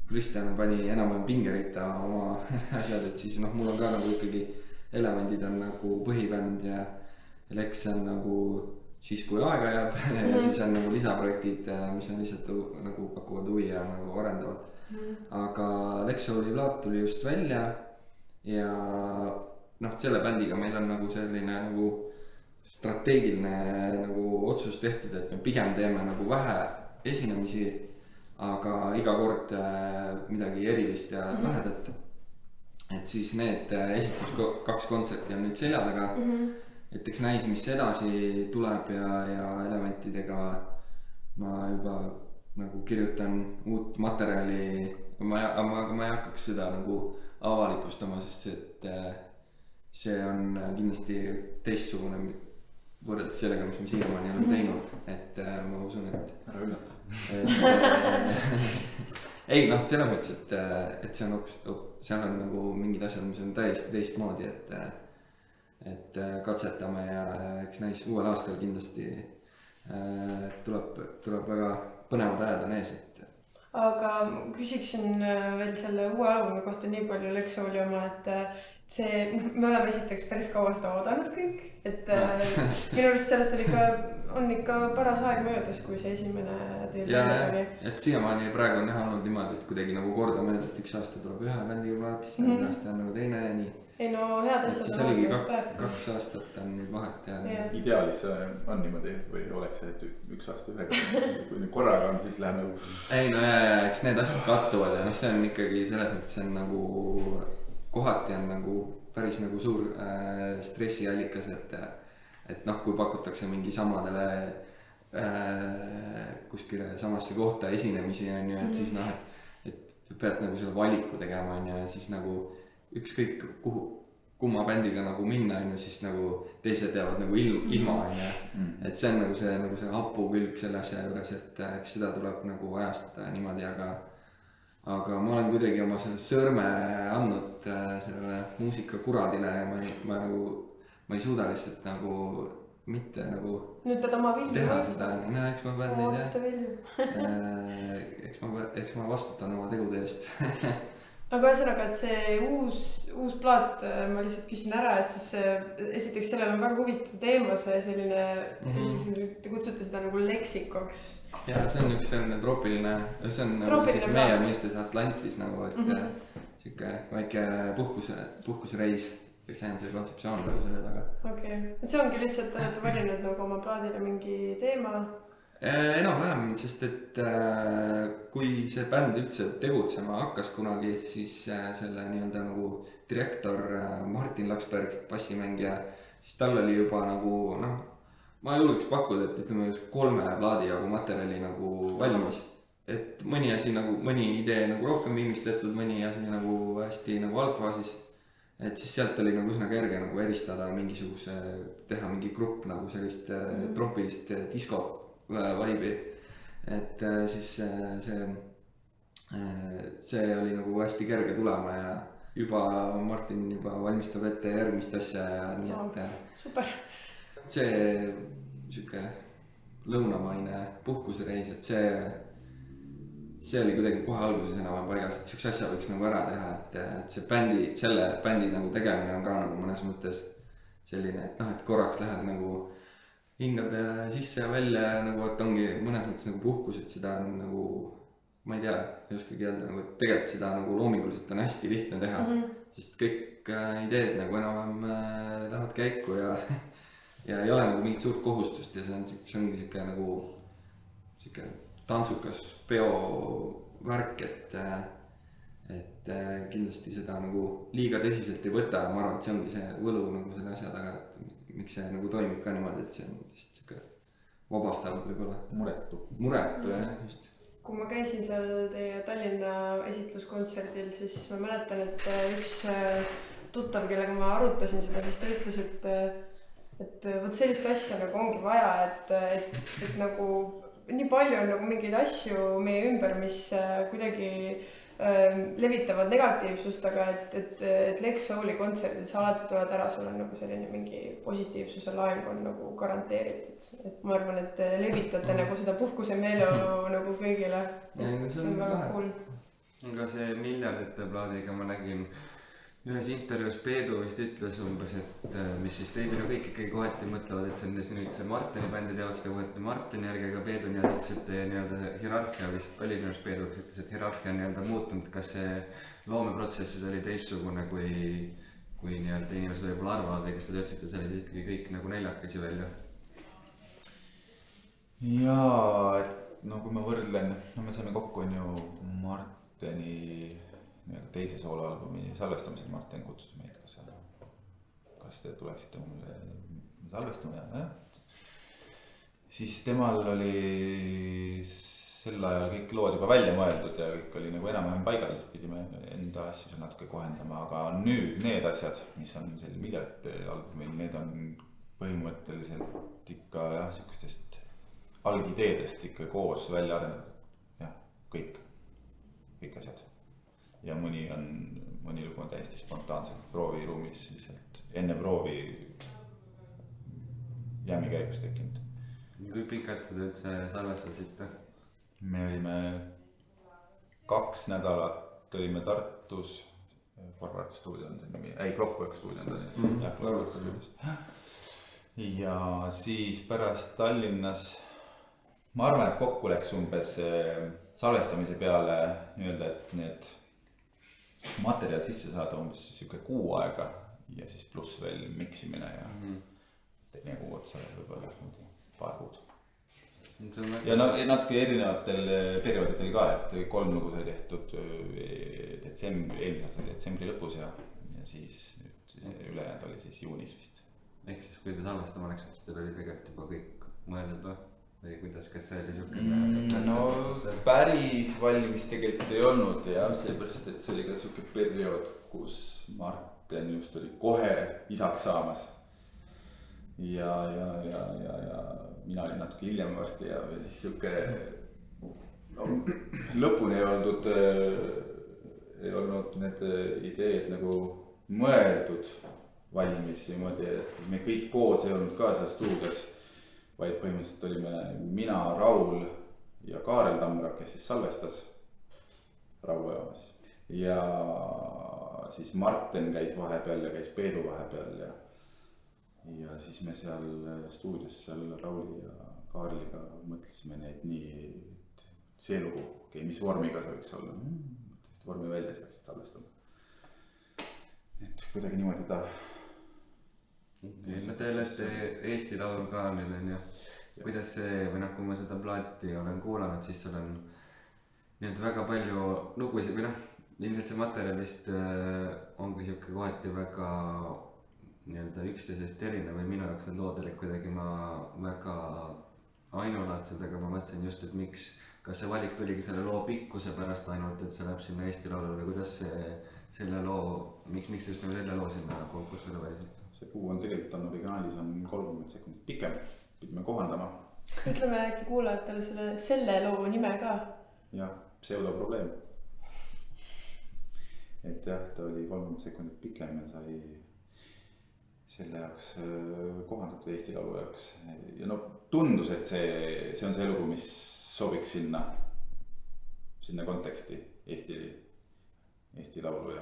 Kristjan pani enam-vähem pingeritta oma asjad, et siis noh, mul on ka nagu ikkagi Elevandid on nagu põhibänd ja Lex on nagu siis, kui aega jääb ja siis on nagu lisaprojektid, mis on lihtsalt nagu pakuvad huvi ja nagu arendavad. aga Lexoli plaat tuli just välja ja noh, selle bändiga meil on nagu selline nagu strateegiline nagu otsus tehtud, et me pigem teeme nagu vähe esinemisi, aga iga kord midagi erilist ja lahedat. et siis need kaks kontserti on nüüd selja taga. et eks näis, mis edasi tuleb ja Elevantidega ma juba nagu kirjutan uut materjali. ma ei hakkaks seda nagu avalikustama, sest et see on kindlasti teistsugune võrreldes sellega, mis me siiamaani oleme teinud, et ma usun, et ära üllata. ei noh, selles mõttes, et see on seal on nagu mingid asjad, mis on täiesti teistmoodi, et katsetame ja eks näis uuel aastal kindlasti tuleb väga põnevad ajad on ees, et. aga küsiksin veel selle uue albumi kohta nii palju Lexoli oma, et see, me oleme esiteks päris kaua seda oodanud kõik, et minu arust sellest on ikka paras aeg möödas, kui see esimene teil välja tuli. et siiamaani praegu on näha olnud niimoodi, et kuidagi nagu kordamööda, et üks aasta tuleb ühe bändiga plaat, siis järgmine aasta on nagu teine ja nii. ei no head asjad. siis oligi 2 aastat on nüüd vahet ja. ideaalis on niimoodi või oleks see, et 1 aasta ühega, kui nüüd korraga on, siis läheb nagu. ei no eks need asjad kattuvad ja noh, see on ikkagi selles mõttes on nagu kohati on nagu päris nagu suur stressiallikas, et noh, kui pakutakse mingi samadele kuskile samasse kohta esinemisi on ju, et siis noh, et pead nagu selle valiku tegema on ju, ja siis nagu ükskõik kumma bändiga nagu minna on ju, siis nagu teised jäävad nagu ilma on ju. Et see on nagu see hapu külg selle asja juures, et eks seda tuleb nagu ajastada niimoodi, aga ma olen kuidagi oma selle sõrme andnud sellele muusikakuradile ja ma ei suuda lihtsalt nagu mitte nagu nüüd pead oma vilju teha seda, no eks ma pean neid eks ma vastutan oma tegude eest. aga ühesõnaga, et see uus plaat, ma lihtsalt küsin ära, et siis esiteks sellel on väga huvitav teema, see selline, esiteks te kutsute seda nagu leksikoks. Ja see on üks selline troopiline, see on nagu siis meie mõistes Atlantis nagu, et siuke väike puhkusreis. Kõik see on see kontseptsioon nagu selle taga. Okei, et see ongi lihtsalt, olete valinud nagu oma plaadile mingi teema? Enam-vähem, sest et kui see bänd üldse tegutsema hakkas kunagi, siis selle nii-öelda nagu direktor Martin Laksberg, bassimängija, siis tal oli juba nagu noh, ma julgeks pakkuda, et ütleme 3 plaadi jagu materjali nagu valmis. Et mõni asi nagu, mõni idee nagu rohkem viimistletud, mõni asi nagu hästi nagu algfaasis. Et siis sealt oli nagu üsna kerge nagu eristada mingisuguse, teha mingi grupp nagu sellist troopilist disko vibe'i. Et siis see oli nagu hästi kerge tulema ja juba Martin juba valmistab ette järgmist asja ja nii et super. See siuke lõunamaine puhkusereis, et see oli kuidagi kohe alguses enam paigas, et siukse asja võiks nagu ära teha, et see selle bändi nagu tegemine on ka nagu mõnes mõttes selline, et noh, et korraks lähed nagu hingad sisse ja välja nagu, et ongi mõnes mõttes nagu puhkus, et seda on nagu, ma ei tea, ei oskagi öelda nagu, et tegelikult seda nagu loominguliselt on hästi lihtne teha, sest kõik ideed nagu enam lähevad käiku ja ei ole nagu mingit suurt kohustust ja see ongi siuke nagu siuke tantsukas peovärk, et kindlasti seda nagu liiga tõsiselt ei võta ja ma arvan, et see ongi see võlu nagu selle asja taga, et miks see nagu toimib ka niimoodi, et see on vist siuke vabastav võib-olla. Muretu jah, just. Kui ma käisin seal teie Tallinna esitluskontserdil, siis ma mäletan, et üks tuttav, kellega ma arutasin seda, siis ta ütles, et võt sellist asja nagu ongi vaja, et nagu nii palju on nagu mingeid asju meie ümber, mis kuidagi levitavad negatiivsust, aga et Lex Souli kontserdid sa alati tuled ära, sul on nagu selline mingi positiivsuse laeng on nagu garanteeritud. Et ma arvan, et levitate nagu seda puhkuse meeleolu nagu kõigile. See on väga cool. Aga see miljardite plaadiga ma nägin ühes intervjuus Peedu vist ütles umbes, et mis siis teibile kõik ikkagi kohati mõtlevad, et see nüüd see Martini bändi teevad seda kohati Martini järgi, aga Peedu nii-öelda ütles, et nii-öelda hierarhia vist oli minu arust Peedu ütles, et hierarhia on nii-öelda muutunud, kas see loomeprotsessis oli teistsugune kui nii-öelda inimesed võib-olla arvavad või kas te ütlesite selle siis ikkagi kõik nagu neljakesi välja? Jaa, et no kui ma võrdlen, no me saime kokku on ju Martini teise sooloalbumi salvestamisel, Martin kutsus meid, kas te tuleksite mulle salvestama jah. Siis temal oli sel ajal kõik lood juba välja mõeldud ja kõik oli nagu enam-vähem paigas, pidime enda asju natuke kohendama, aga nüüd need asjad, mis on selle miljardite albumil, need on põhimõtteliselt ikka jah, siukestest algideedest ikka koos välja arendatud, jah, kõik asjad. Ja mõni lugu on täiesti spontaanselt prooviruumis lihtsalt enne proovi jämi käigus tekkinud. Kui pikalt te üldse salvestasite? Me olime 2 nädalat olime Tartus, Forward stuudio on see nimi, Clockwork stuudio on ta nüüd, Clockwork stuudios. Ja siis pärast Tallinnas, ma arvan, et kokku läks umbes salvestamise peale nii-öelda, et need materjal sisse saada umbes siuke 6 aega ja siis pluss veel miksimine ja teine kuu otsa võib-olla paar kuud. Ja natuke erinevatel perioodidel ka, et 3 lugu sai tehtud eelmise aasta detsembri lõpus ja siis nüüd ülejäänud oli siis juunis vist ehk siis kui te salvestama läksite, siis teil oli tegelikult juba kõik mõeldud või kuidas, kas see oli siukene? No päris valmis tegelikult ei olnud ja seepärast, et see oli ka siuke periood, kus Martin just oli kohe isaks saamas. Ja mina olin natuke hiljem varsti ja siis siuke lõpuni ei olnud need ideed nagu mõeldud valmis niimoodi, et me kõik koos ei olnud ka seal stuudios, vaid põhimõtteliselt olime mina, Raul ja Kaarel Tamra, kes siis salvestas Rauajaama siis. Ja siis Martin käis vahepeal ja käis Peedu vahepeal ja siis me seal stuudios seal Rauli ja Kaarliga mõtlesime neid nii, see lugu, mis vormiga see võiks olla. Vormi välja siis läksid salvestama. Et kuidagi niimoodi ta. No te olete Eesti Laul ka nüüd on ju. Kuidas see, või kui ma seda plaati olen kuulanud, siis seal on nii väga palju lugusid või ilmselt see materjal vist ongi siuke kohati väga üksteisest erinev või minu jaoks need lood olid kuidagi väga ainulaadsed, aga ma mõtlesin just, et miks, kas see valik tuligi selle loo pikkuse pärast ainult, et see läheb sinna Eesti Laulule või kuidas selle loo, miks just selle loo sinna konkursile valisid? See kuu on tegelikult originaalis on 30 sekundit pikem, pidime kohandama. Ütleme äkki kuulajatele selle loo nime ka. Jah, pseudoprobleem. Et jah, ta oli 30 sekundit pikem ja sai selle jaoks kohandatud Eesti Laulu jaoks. Ja tundus, et see on see lugu, mis sobiks sinna konteksti Eesti Laulu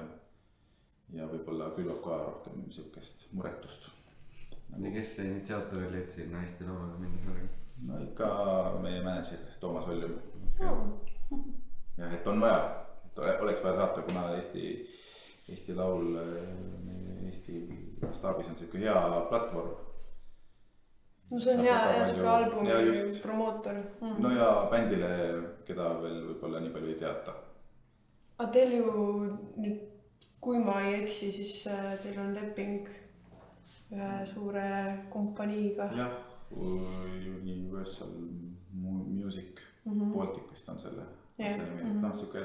ja võib-olla külvab ka rohkem siukest muretust. Ja kes see initsiaator oli, et sinna Eesti Laulule minna sellega? No ikka meie manager Toomas Oljum. Ja et on vaja, et oleks vaja saata, kuna Eesti Laul Eesti staabis on siuke hea platvorm. No see on hea siuke albumi promootor. No ja bändile, keda veel võib-olla nii palju ei teata. Aga teil ju nüüd, kui ma ei eksi, siis teil on leping ühe suure kompaniiga. Jah, Universal Music Baltic vist on selle nimi. Siuke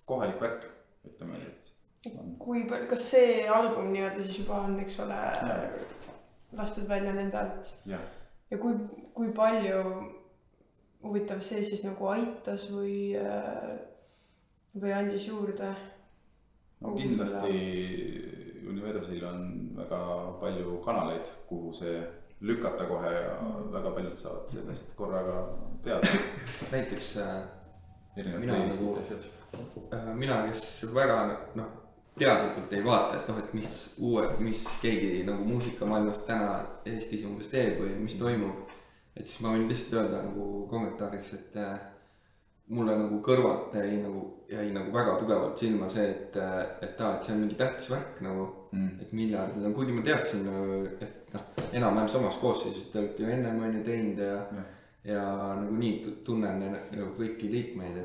kohalik värk, ütleme, et kas see album nii-öelda siis juba on, eks ole, lastud välja nende alt? Ja kui palju huvitav see siis nagu aitas või andis juurde? No kindlasti Universalil on väga palju kanaleid, kuhu see lükata kohe ja väga paljud saavad sellest korraga teada. Näiteks mina, kes väga teadlikult ei vaata, et mis keegi nagu muusikamaailmast täna Eestis umbes teeb või mis toimub. Et siis ma võin lihtsalt öelda nagu kommentaariks, et mulle nagu kõrvalt jäi nagu väga tugevalt silma see, et see on mingi tähtis värk nagu, et miljardid on, kuigi ma teadsin, et enam-vähem samas koosseisus, te olete ju ennem on ju teinud ja nagu nii tunnen nagu kõiki liikmeid,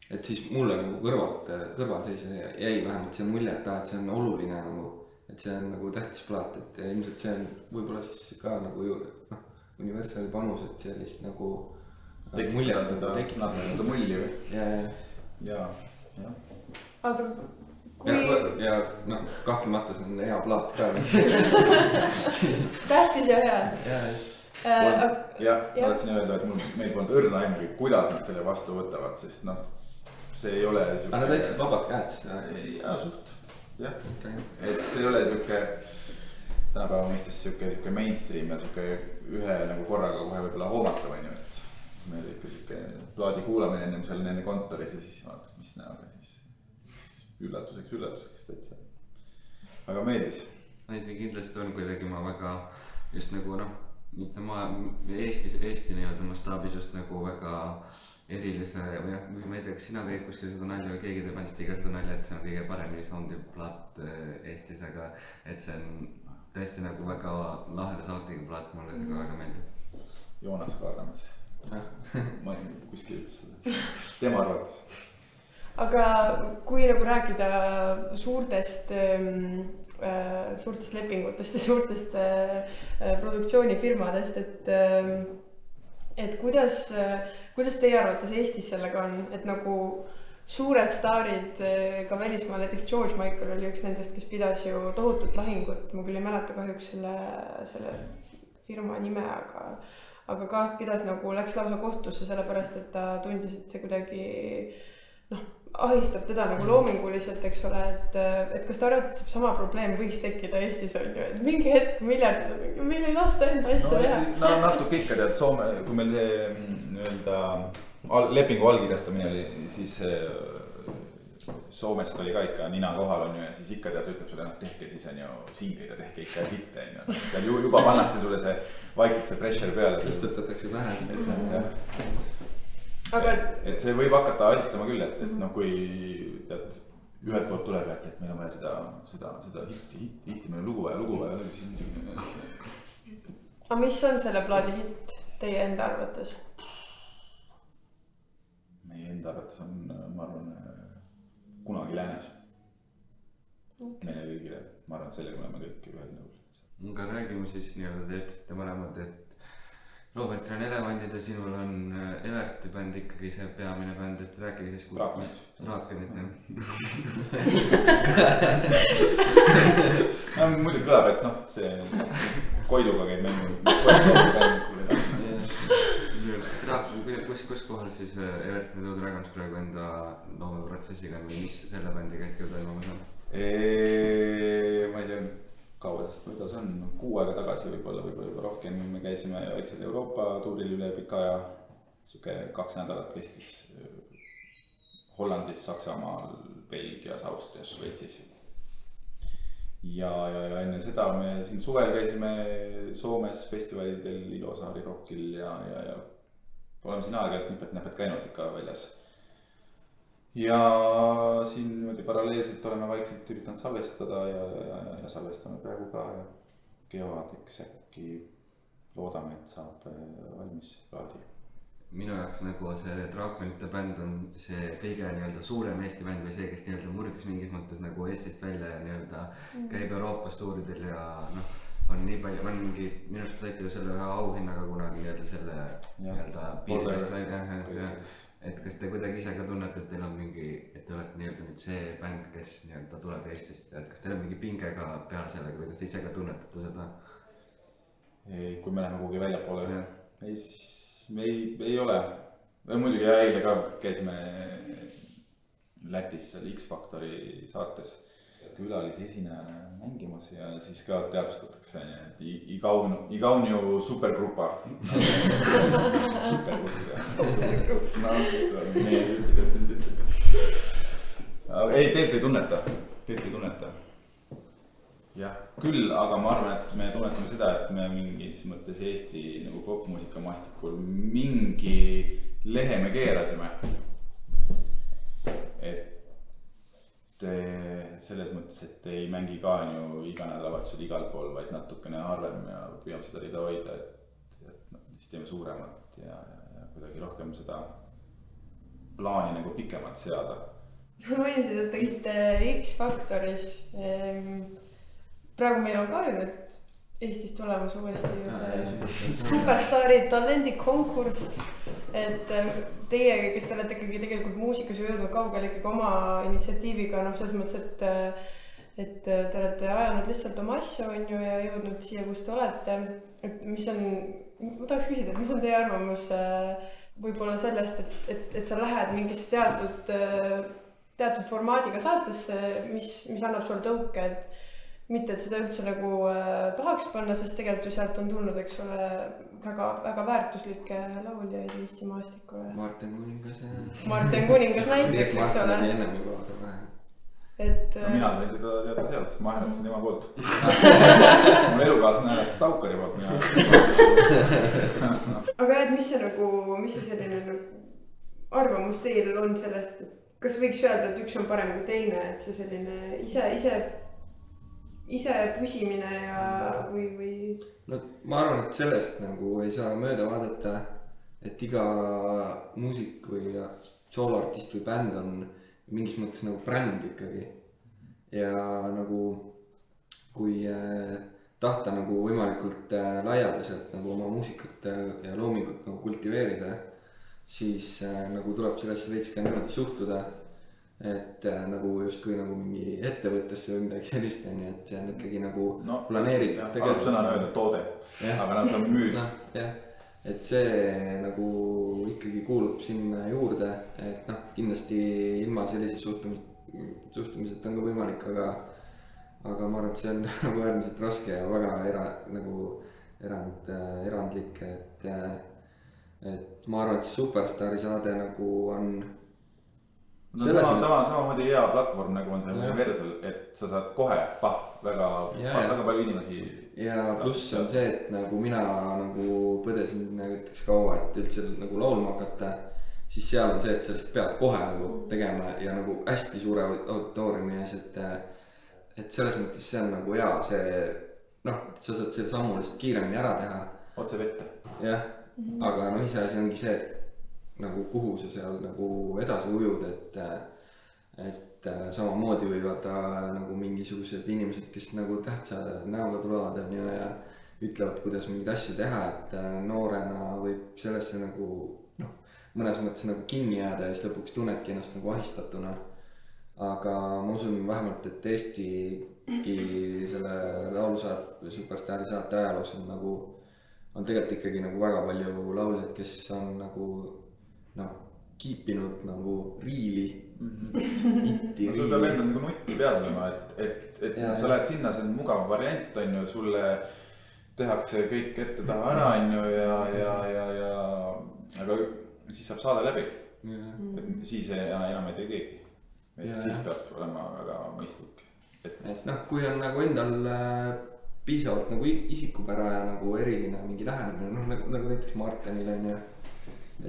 et siis mulle nagu kõrvalseisja jäi vähemalt see mulje, et see on oluline nagu, et see on nagu tähtis plaat, et ilmselt see on võib-olla siis ka nagu Universali panus, et sellist nagu tekitada seda mulli või? Ja. Aga kui... Ja kahtlemata see on hea plaat ka. Tähtis ja hea. Jah, ma tahtsin öelda, et meil polnud õrna aimugi, kuidas nad selle vastu võtavad, sest see ei ole siuke... Aga nad võtsid vabad käed seda? Ja, suht. Jah, et see ei ole siuke tänapäeva mõistes siuke mainstream ja siuke ühe nagu korraga kohe võibolla hoomatav on ju, et meil ikka siuke plaadi kuulamine ennem seal nende kontoris ja siis vaatad, mis näoga siis üllatuseks täitsa. Aga meeldis. Näiteks kindlasti on kuidagi ma väga just nagu mitte Eesti nii-öelda mastaabis just nagu väga erilise või ma ei tea, kas sina tegid kuskil seda nalja või keegi teeb andist iga seda nalja, et see on kõige paremini soundib plaat Eestis, aga et see on tõesti nagu väga laheda soundiga plaat, mulle see ka väga meeldib. Joonas ka arvamas. Ma ei kuskil ütles seda. Tema arvates. Aga kui nagu rääkida suurtest suurtest lepingutest ja suurtest produktsioonifirmadest, et kuidas teie arvates Eestis sellega on, et nagu suured staarid ka välismaal, näiteks George Michael oli üks nendest, kes pidas ju tohutut lahingut, ma küll ei mäleta kahjuks selle firma nime, aga ka pidas nagu, läks lausa kohtusse sellepärast, et ta tundis, et see kuidagi ahistab teda nagu loominguliselt, eks ole, et kas ta arvab, et sama probleem võiks tekkida Eestis on ju, et mingi hetk miljardid on mingi, meil ei lasta enda asja teha. No natuke ikka tead, Soome, kui meil see nii-öelda lepingu allkirjastamine oli, siis Soomest oli ka ikka nina kohal on ju ja siis ikka tead, ütleb sulle, tehke siis on ju singleid ja tehke ikka hitte on ju. Juba pannakse sulle see vaikselt see pressure peale. Sest tõtatakse vähem. Et see võib hakata ahistama küll, et kui tead, ühelt poolt tuleb, et meil on vaja seda hitti, meil on lugu vaja. Aga mis on selle plaadi hitt teie enda arvates? Meie enda arvates on, ma arvan, kunagi läänes. Meile kõigile, ma arvan, et sellega oleme kõik ühel nõul. Aga räägime siis nii-öelda, te ütlesite mõlemad, et Robert on Elevandid ja sinul on Everti bänd ikkagi see peamine bänd, et rääkige siis Draakenit. Muidugi kõlab, et see Koiduga käib mängu. Kus kohal siis Evert ja Dragons praegu enda loomeprotsessiga või mis selle bändiga hetkel toimumas on? Ma ei tea, kaua sest kuidas on, 6 aega tagasi võib-olla rohkem, me käisime väiksel Euroopa tuuril üle pika aja, siuke 2 nädalat kestis Hollandis, Saksamaal, Belgias, Austrias, Šveitsis. Ja enne seda me siin suvel käisime Soomes festivalidel, Ilosaari Rockil ja oleme siin aega-ajalt nipet-näpet käinud ikka väljas. Ja siin niimoodi paralleelselt oleme vaikselt üritanud salvestada ja salvestame praegu ka ja kevadeks äkki loodame, et saab valmis plaadi. Minu jaoks nagu see Draakonite bänd on see kõige nii-öelda suurem Eesti bänd või see, kes nii-öelda murdis mingis mõttes nagu Eestist välja ja nii-öelda käib Euroopas tuuridel ja on nii palju, on mingi, minu arust saite ju selle ühe auhinnaga kunagi nii-öelda selle nii-öelda piirist välja. Et kas te kuidagi ise ka tunnete, et teil on mingi, et te olete nii-öelda nüüd see bänd, kes nii-öelda tuleb Eestist, et kas teil on mingi pinge ka peale sellega või kas te ise ka tunnetate seda? Kui me läheme kuhugi välja poole, me ei ole. Muidugi eile ka käisime Lätis seal X-Factori saates külalise esinejana mängimas ja siis ka teadvustatakse, et Igaunju supergrupa. Supergrupp. Ei, teilt ei tunneta. Jah, küll, aga ma arvan, et me tunnetame seda, et me mingis mõttes Eesti nagu popmuusika maastikul mingi lehe me keerasime. Et selles mõttes, et ei mängi ka ju iga nädalavahetusel igal pool, vaid natukene harvem ja püüame seda rida hoida, et siis teeme suuremat ja kuidagi rohkem seda plaani nagu pikemalt seada. Sa mainisid, et te käisite X-Factoris. Praegu meil on ka ju nüüd Eestis tulemas uuesti ju see superstaari talendikonkurss, et teie, kes te olete ikkagi tegelikult muusikas jõudnud kaugele ikkagi oma initsiatiiviga, selles mõttes, et te olete ajanud lihtsalt oma asju on ju ja jõudnud siia, kus te olete. Et mis on, ma tahaks küsida, et mis on teie arvamus võib-olla sellest, et sa lähed mingisse teatud formaadiga saatesse, mis annab sul tõuke, et mitte, et seda üldse nagu pahaks panna, sest tegelikult ju sealt on tulnud, eks ole, väga väärtuslikke lauljaid Eesti maastikule. Martin Kuningas näiteks, eks ole. Mina võin teada sealt, ma hääletasin tema poolt. Mul elukaaslane hääletas Taukari poolt. Aga mis see selline arvamus teil on sellest, et kas võiks öelda, et üks on parem kui teine, et see selline ise püsimine ja või? No ma arvan, et sellest nagu ei saa mööda vaadata, et iga muusik või sooloartist või bänd on mingis mõttes nagu bränd ikkagi. Ja nagu kui tahta nagu võimalikult laialdaselt nagu oma muusikat ja loomingut nagu kultiveerida, siis nagu tuleb sellesse veits ka niimoodi suhtuda, et nagu justkui nagu mingi ettevõttesse või midagi sellist on ju, et see on ikkagi nagu planeeritud. tegelikult sõna on öelda toode, aga sa müüd. jah, et see nagu ikkagi kuulub sinna juurde, et noh, kindlasti ilma sellise suhtumiseta on ka võimalik, aga ma arvan, et see on nagu äärmiselt raske ja väga erandlik, et ma arvan, et see Superstaari saade nagu on samamoodi hea platvorm nagu on see Universal, et sa saad kohe väga palju inimesi. Ja pluss on see, et nagu mina nagu põdesin näiteks kaua, et üldse nagu laulma hakata, siis seal on see, et sellest pead kohe nagu tegema ja nagu hästi suure auditooriumi ees, et selles mõttes see on nagu hea, see noh, sa saad selle sammu lihtsalt kiiremini ära teha. Otse vette. Jah, aga noh, ise asi ongi see, et nagu kuhu sa seal nagu edasi ujud, et samamoodi võivad nagu mingisugused inimesed, kes nagu tähtsa näoga tulevad on ju ja ütlevad, kuidas mingeid asju teha, et noorena võib sellesse nagu noh, mõnes mõttes nagu kinni jääda ja siis lõpuks tunnedki ennast nagu ahistatuna. Aga ma usun vähemalt, et Eestigi selle laulusaate Superstaari saate ajaloos on nagu on tegelikult ikkagi nagu väga palju lauljaid, kes on nagu noh, kiipinud nagu riili, itti riili. Sul peab endal nagu nutti peal olema, et sa lähed sinna, see on mugav variant, on ju, sulle tehakse kõik ette taha ära, on ju, aga siis saab saada läbi. Siis enam ei tee keegi. Siis peab olema väga mõistlik. Et noh, kui on nagu endal piisavalt nagu isikupära ja nagu eriline mingi lähenemine, noh nagu näiteks Martenil on ju,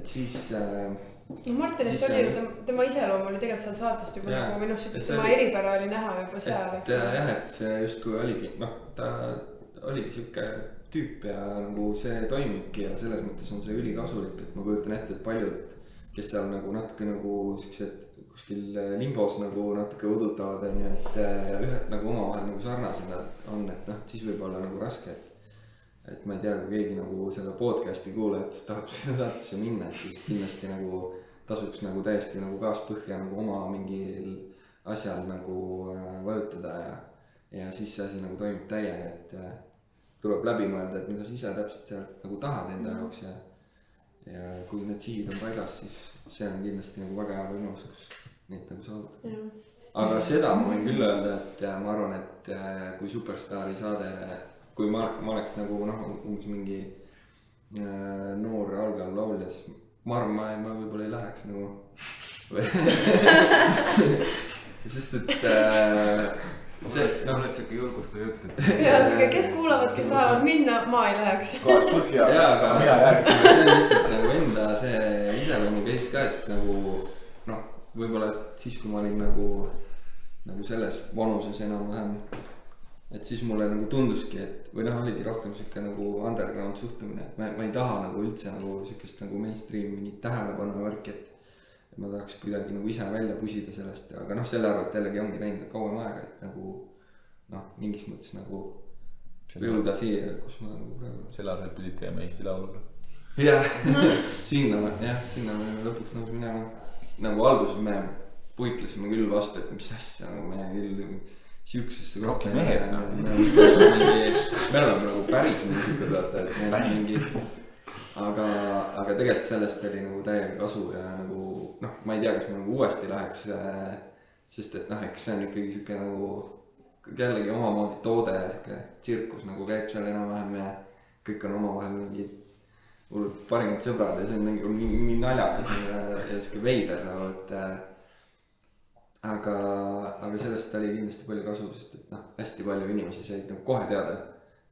et siis Martenist oli ju, tema iseloom oli tegelikult seal saatest juba nagu minu arust, tema eripära oli näha juba seal. Et see justkui oligi, noh, ta oligi siuke tüüp ja nagu see toimibki ja selles mõttes on see ülikasulik, et ma kujutan ette, et paljud, kes seal nagu natuke nagu siuksed kuskil limbos nagu natuke udutavad on ju, et ühed nagu omavahel nagu sarnased on, et noh, siis võib olla nagu raske, et ma ei tea, kui keegi nagu selle podcast'i kuulajatest tahab sinna saatesse minna, et siis kindlasti nagu tasuks nagu täiesti nagu kaaspõhja nagu oma mingil asjal nagu vajutada ja siis see asi nagu toimib täiega, et tuleb läbi mõelda, et mida sa ise täpselt sealt nagu tahad enda jaoks ja kui need sihid on paigas, siis see on kindlasti nagu väga hea võimalus, kus neid nagu saavutada. Aga seda ma võin küll öelda, et ma arvan, et kui Superstaari saade, kui ma oleks nagu noh, umbes mingi noor algav laulja, siis ma arvan, ma võib-olla ei läheks nagu sest et see oled siuke julgustav jutt, ja siuke, kes kuulavad, kes tahavad minna, ma ei läheks. Kaas põhja, aga mina jääksin. See on lihtsalt nagu enda see iseloomu case ka, et nagu noh, võib-olla siis, kui ma olin nagu selles vanuses enam-vähem, et siis mulle nagu tunduski, et või noh, oligi rohkem siuke nagu underground suhtumine, et ma ei taha nagu üldse nagu siukest nagu mainstream mingit tähelepanu värki, et ma tahaks kuidagi nagu ise välja pusida sellest, aga noh, selle arvalt jällegi ongi näinud kauem aega, et nagu noh, mingis mõttes nagu jõuda siia, kus ma nagu praegu. Selle arvalt pidid käima Eesti Lauluga. Jah, sinna me lõpuks nagu minema. Nagu alguses me puitlesime küll vastu, et mis asja, nagu me küll siuksesse rohkem mehed. Me oleme nagu päris muusikud, vaata, et meil on mingi aga tegelikult sellest oli nagu täiega kasu ja nagu noh, ma ei tea, kas ma nagu uuesti läheks, sest et noh, eks see on ikkagi siuke nagu jällegi omamoodi toode, siuke tsirkus nagu käib seal enam-vähem ja kõik on omavahel mingid hullud parimad sõbrad ja see on mingi naljakas ja siuke veider nagu, et aga sellest oli kindlasti palju kasu, sest et noh, hästi palju inimesi said nagu kohe teada,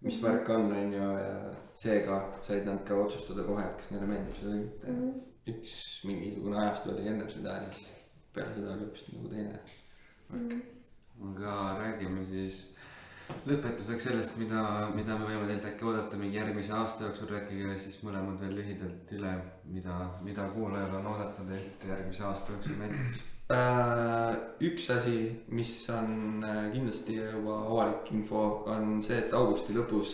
mis värk on ju ja seega said nad ka otsustada kohe, et kas neile meeldib seda või mitte. Üks mingisugune ajastu oli enne seda ja siis peale seda oli hoopis nagu teine värk. Aga räägime siis lõpetuseks sellest, mida me võime teilt äkki oodata mingi järgmise aasta jooksul, rääkige siis mõlemad veel lühidalt üle, mida kuulajal on oodata teilt järgmise aasta jooksul näiteks. Üks asi, mis on kindlasti juba avalik info, on see, et augusti lõpus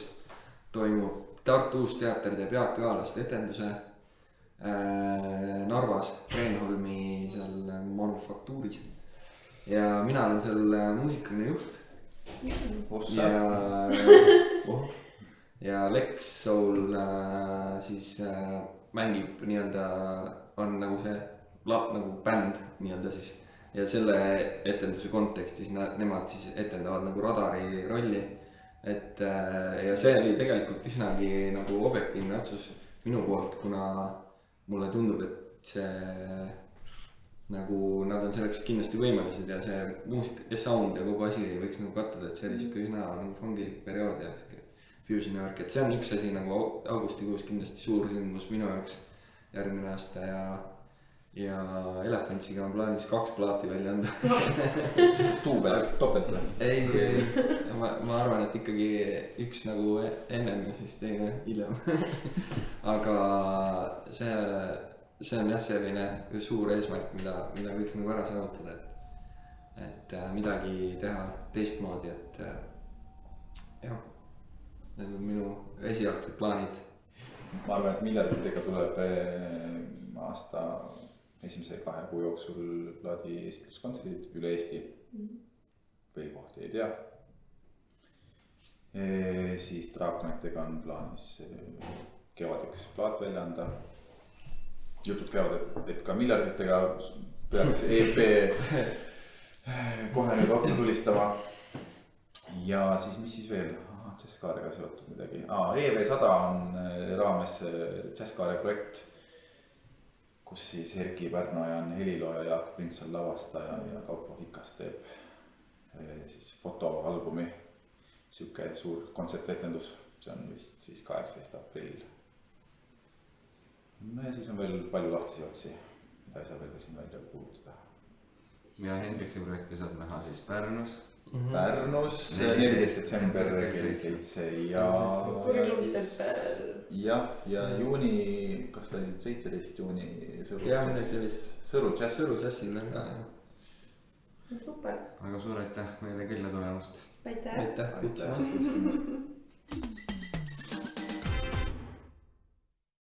toimub Tartu Uus Teater teeb Jaak Joalaste etenduse Narvas, Kreenholmi seal Manufaktuuris. Ja mina olen seal muusikaline juht. Ja Lex Soul siis mängib nii-öelda, on nagu see nagu bänd nii-öelda siis. Ja selle etenduse kontekstis nemad siis etendavad nagu Radari rolli. Ja see oli tegelikult üsnagi nagu objektiivne otsus minu poolt, kuna mulle tundub, et see nagu nad on selleks kindlasti võimelised ja see muusika ja sound ja kogu asi võiks nagu kattuda, et see oli siuke üsna nagu fungilik periood ja fusioni värk, et see on üks asi nagu augustikuus kindlasti suur sündmus minu jaoks järgmine aasta ja Elephantsiga on plaanis 2 plaati välja anda. Stuubel, topelt või? Ei, ma arvan, et ikkagi üks nagu ennem ja siis teine hiljem. Aga see on jah selline suur eesmärk, mida võiks nagu ära saavutada, et midagi teha teistmoodi, et jah, need on minu esialgsed plaanid. Ma arvan, et miljarditega tuleb aasta esimese 2 kuu jooksul plaadi esitluskontserdid üle Eesti. Veel kohti ei tea. Siis Draakonitega on plaanis kevadeks plaat välja anda. Jutud käivad, et ka miljarditega peaks EP kohe nüüd otsa tulistama. Ja siis, mis siis veel? Jazzkaarega seotud midagi. EV100 on raames Jazzkaare projekt, kus siis Erki Pärnoja on helilooja, Jaak Prints on lavastaja ja Kaupo Hikas teeb siis fotoalbumi. Siuke suur kontsertetendus, see on vist siis 18. aprill. No ja siis on veel palju lahtisi otsi, mida ei saa veel siin välja kuulutada. Ja Hendriksi projekti saab näha siis Pärnus. Pärnus 14. detsember kell 7 ja juuni, kas ta oli 17 juuni Sõru Jazzil on ka. Super. Aga suur aitäh meile külla tulemast. Aitäh. Aitäh.